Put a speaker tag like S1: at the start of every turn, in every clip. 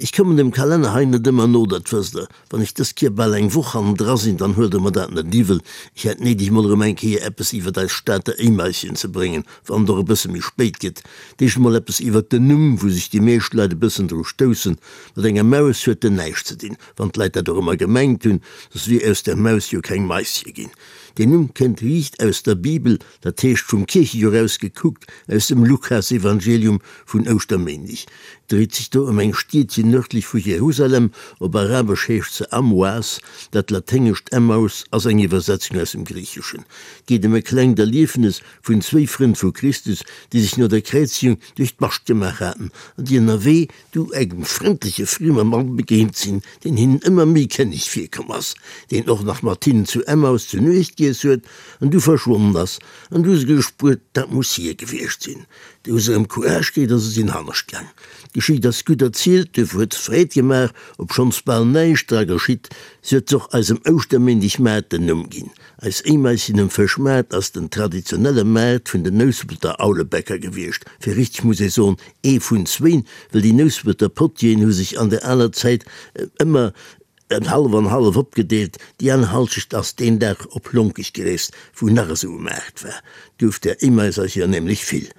S1: Ech kommen dem Kalenner hei net ëmmer no, dat wësst Der. Wann ech dës Kier bal eng Woch hannendra sinn, dann huelt Der mer dat net iwwel. Ech hätt néideg mol erëm eng Kéier eppes iwwert eis Stater Éimaischen ze bréngen, wann et och e bësse méi spéit gëtt. D'éischt emol eppes iwwert den Numm, wou sech déi meescht Leit e bëssen dru stoussen. Mat enger Maus huet en näischt ze dinn, wann d'Leit dat och ëmmer gemengt hunn, soss wier aus der Maus jo keng Maische ginn. Deen Numm kënnt riicht aus der Bibel, dat heescht vum Kierchejoer aus gekuckt, aus dem Lukasevangelium vun Ouschterméindeg. Et dréit sech do ëm eng Stiedchen nërdlech vu Jerusalem, op Arabesch heescht se Amwas, dat laténgescht Emmaus ass eng Iwwersetzung aus dem Griicheschen. Et geet ëm e klengt Erliefnes vun zwéi Frënn vu Christus, déi sech no der Kräizegung duerch d'Bascht gemaach haten an déi ënnerwee du engem frëndleche friemer Mann begéint sinn, deen hinnen ëmmer méi kenneg virkomm ass, deen och nach mat hinnen zu Emmaus zu Nuecht giess huet an du verschwonnen ass. An du hu se gespuert, dat muss hie gewiescht sinn. Du hu se erëm Courage kritt a se sinn hannescht gaang. D'Geschicht ass gutt erzielt, duerfir huet se Freed gemaach, obschonns bal näischt dra geschitt. Si huet och eisem Ouschterméindegmaart den Numm ginn. Eis Éimaischen um Fëschmaart ass den traditionelle Maart vun den Nouspelter Aulebäcker gewiescht. Fir richteg muss ee soen, ee vun zwéin, well déi Nouspelter Potieren hu sech an der aler Zäit ëmmer hallef an hallef opgedeelt. Déi aner Halschecht ass deen Dag op Lonkech gereest, wou nach esou e Maart war. 't gouf där Éimaisercher nämlech vill.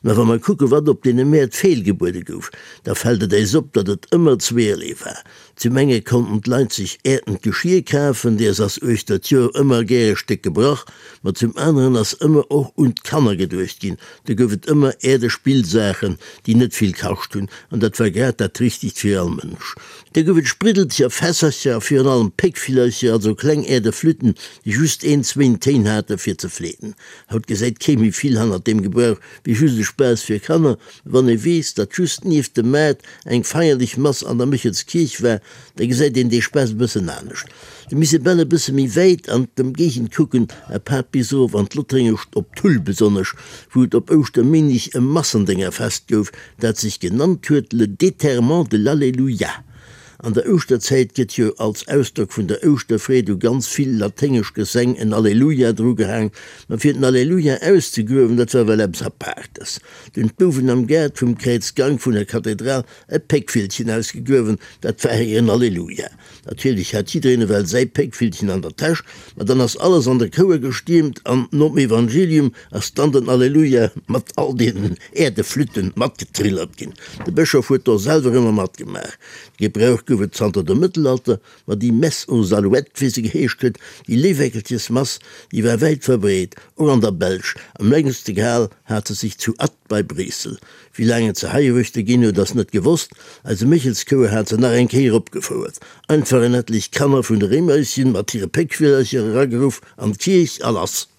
S1: Mä wa mer kucke wat op deene Mäert feelgebuede gouf, da fält et äis op, datt et ëmmer zweerlee war. Zum enge konnten d'Leit sech äertent Geschir kafen, deers ass uechter d'Joer ëmmer gär e Stéck gebrach, ma zum aneren ass ëmmer och un d'Kanner geduecht ginn, do gouf et ëmmer äerde Spillsaachen, déi net vill kascht hunn, an dat war grad dat Richtegt fir all Mënsch. Da gouf et Spriddelcher, Fässercher a virun allem Péckvillercher, also kleng äerde Flütten, déi just een, zwéin Téin hate fir ze fleeten. Haut gesäit kee méi vill hannert deem Gebrauch wéi just e Spaass fir Kanner, mä wann ee weess, datt just nieft dem Maart eng feierlech Mass an der Méchelskierch war, da gesäit een dee Spaass e bëssen anescht. Da misst ee bal e bësse méi wäit an d'Ëmgéigend kucken, apaart bis erof an d'Lottréngescht op Tull besonnesch, wou et op Ouschterméindeg e Massendéngerfest gouf, dat sech genannt huet Le déterrement de l'Alleluia. An der Ouschterzäit gëtt jo als Ausdrock vun der Ouschterfreed u ganz vill laténgesch Gesäng en Alleluia drugehaang, ma fir den Alleluia auszegruewen, dat war well eppes Apaartes. Du hunn d'Bouwen am Gaart vum Kräizgank vun der Kathedral e Péckvillchen ausgegruewen, dat war hiren Alleluia. Natierlech hat jiddereen ewell säi Péckvillchen an der Täsch, ma dann ass alles an de Chouer gestiermt an nom Evangelium ass dann den Alleluia mat all deenen Äerdeflütten matgetrillert ginn. De Bëschof huet do selwer ëmmer matgemaach. De Gebrauch gouf et zanter dem Mëttelalter, ma déi Messe aux Alouettes, wéi se geheescht huet, déi Léiweckelchesmass, déi war wäit verbreet, och an der Belsch. Am längste gehal hat se sech zu Ath bei Bréissel. Wéi laang et se heiruechter ginn huet, ass net gewosst. Eise Méchelschouer hat se nach eng Kéier opgefouert. Einfach en etlech Kanner vun de Réimeischen mat hire Péckvillercher erageruff an d'Kierch a lass.